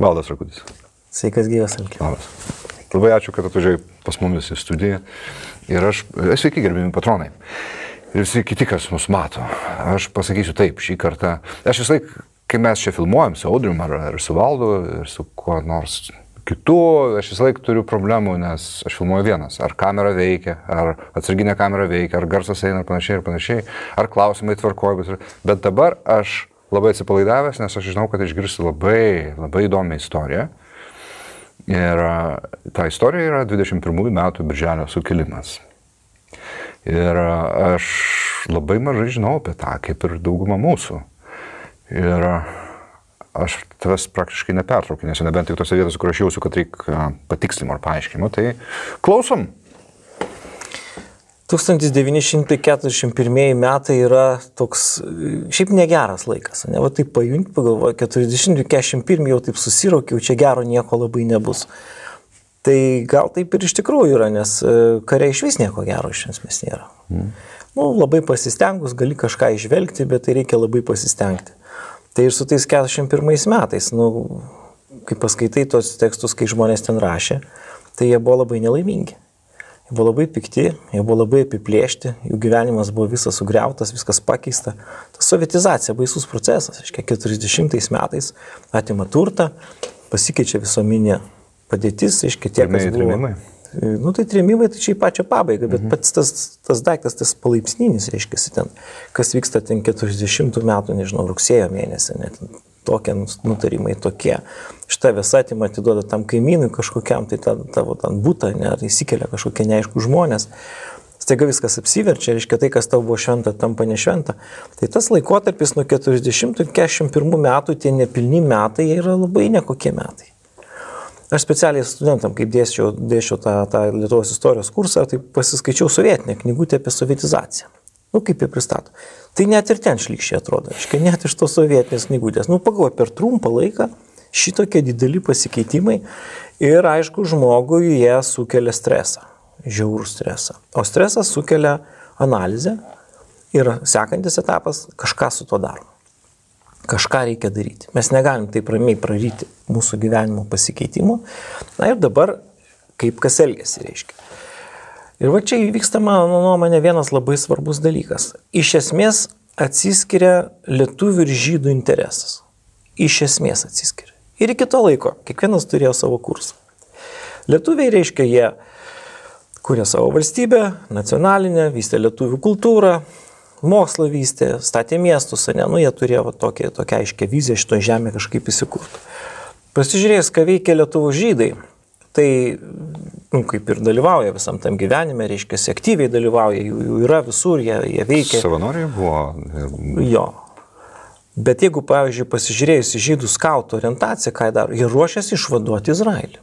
Valdas Rakutis. Sveikas gyvas, Alki. Labas. Labai ačiū, kad atvažiavai pas mumis į studiją. Ir sveiki, gerbimi patronai. Ir visi kiti, kas mus mato. Aš pasakysiu taip, šį kartą. Aš vis laik, kai mes čia filmuojam su Audrium ar su Valdu ir su kuo nors kitu, aš vis laik turiu problemų, nes aš filmuoju vienas. Ar kamera veikia, ar atsarginė kamera veikia, ar garsas eina ir panašiai, ar klausimai tvarkoja. Bet dabar aš labai atsipalaidavęs, nes aš žinau, kad išgirsiu labai įdomią istoriją. Ir ta istorija yra 21 metų Birželio sukilimas. Ir aš labai mažai žinau apie tą, kaip ir dauguma mūsų. Ir aš tavęs praktiškai nepertraukiu, nes nebent tik tose vietose, kur aš jausiu, kad reikia patikslimų ar paaiškinimų. Tai klausom. 1941 metai yra toks, šiaip negeras laikas, ne, va taip pajunti, pagalvoju, 40-41 jau taip susiraukiau, čia gero nieko labai nebus. Tai gal taip ir iš tikrųjų yra, nes kare iš vis nieko gero iš esmės nėra. Labai pasistengus, gali kažką išvelgti, bet tai reikia labai pasistengti. Tai ir su tais 41 metais, kai paskaitai tos tekstus, kai žmonės ten rašė, tai jie buvo labai nelaimingi. Jie buvo labai pikti, jie buvo labai apiplėšti, jų gyvenimas buvo visas sugriautas, viskas pakeista. Ta sovietizacija, baisus procesas, 40 metais atima turtą, pasikeičia visuomenė padėtis, tie, kas buvo. Trėmimai? Tai trėmimai, tai čia į pačią pabaigą, bet pats tas daiktas, tas palaipsninis, ten, kas vyksta ten 40 metų, nežinau, rugsėjo mėnesį, net tokie nutarimai tokie. Šitą visą atimą atiduoda tam kaimynui kažkokiam, tai tavo ten būtą, ar įsikelia kažkokie neaiškų žmonės. Staiga viskas apsiverčia, tai, kas tau buvo šventa, tampa nešventa. Tai tas laikotarpis nuo 40-41 metų, tie nepilni metai, jie yra labai nekokie metai. Aš specialiai studentam, kaip dėsčiau tą Lietuvos istorijos kursą, tai pasiskaičiau sovietinę knygutę apie sovietizaciją. Kaip jie pristato. Tai net ir ten šlykščiai atrodo, net iš tos sovietinės knygutės. Pagalvoju, per trumpą laiką šitokie dideli pasikeitimai ir, aišku, žmogui jie sukelia stresą, žiaurų stresą. O stresas sukelia analizę ir sekantis etapas kažką su to darom. Kažką reikia daryti. Mes negalim taip ramiai praryti mūsų gyvenimo pasikeitimų. Ir dabar kaip kas elgiasi, reiškia. Ir va čia įvyksta, mano nuomonė, vienas labai svarbus dalykas. Iš esmės atsiskiria lietuvių ir žydų interesas. Iš esmės atsiskiria. Ir iki to laiko kiekvienas turėjo savo kursą. Lietuviai, reiškia, jie kūrė savo valstybę, nacionalinę, vystė lietuvių kultūrą, mokslą vystė, statė miestus, jie turėjo tokią aiškę viziją šitoje žemėje kažkaip įsikurti. Pasižiūrėjus, ką veikia lietuvų žydai, tai, kaip ir dalyvauja visam tam gyvenime, reiškia, aktyviai dalyvauja, jų yra visur, jie veikia. Savanoriai buvo. Jo. Bet jeigu, pavyzdžiui, pasižiūrėjus į žydų skautų orientaciją, ką jie daro, jie ruošiasi išvaduoti Izraelį.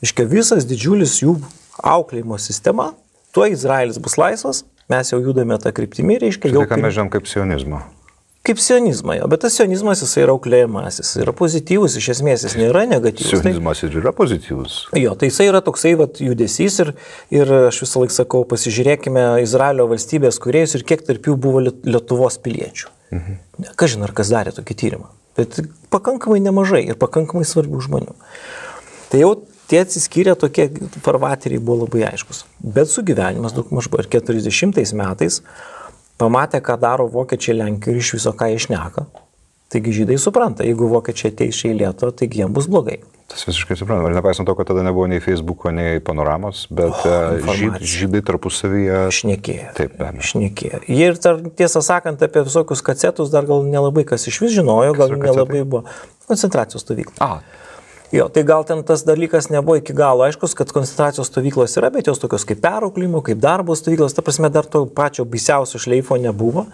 Reiškia, visas didžiulis jų auklėjimo sistema, tuo Izraelis bus laisvas, mes jau judame tą kryptimį, reiškia. Tai ką mes žinom kaip sionizmą. Kaip sionizmą, jo, bet tas sionizmas jis yra auklėjimas, jis yra pozityvus, iš esmės jis nėra negatyvus. Sionizmas ir yra pozityvus. Jo, tai jis yra toksai judesys ir aš visą laiką sakau, pasižiūrėkime Izraelio valstybės kūrėjus ir kiek tarp jų buvo Lietuvos piliečių. Kažin ar kas darė tokį tyrimą, bet pakankamai nemažai ir pakankamai svarbių žmonių. Tai jau tie atsiskyrę tokie farvateriai buvo labai aiškus, bet sugyvenimas daug maž buvo ir 40 metais pamatė, ką daro vokiečiai Lenkijoje ir iš viso ką jie šneka. Taigi žydai supranta, jeigu vokiečiai ateis čia į Lietuvą, taigi jiems bus blogai. Tas visiškai supranta. Ir nepaisant to, kad tada nebuvo nei Facebooko, nei panoramos, bet žydai tarpusavyje šnekėjo. Taip, be abejo. Šnekėjo. Jie ir tiesą sakant apie visokius kacetus dar gal nelabai kas iš vis žinojo, gal nelabai buvo koncentracijos stovykla. Jo, tai gal ten tas dalykas nebuvo iki galo aiškus, kad koncentracijos stovyklos yra, bet jos tokios kaip perauklimo, kaip darbo stovyklos, ta prasme dar to pačio baisiausio šleifo nebuvo.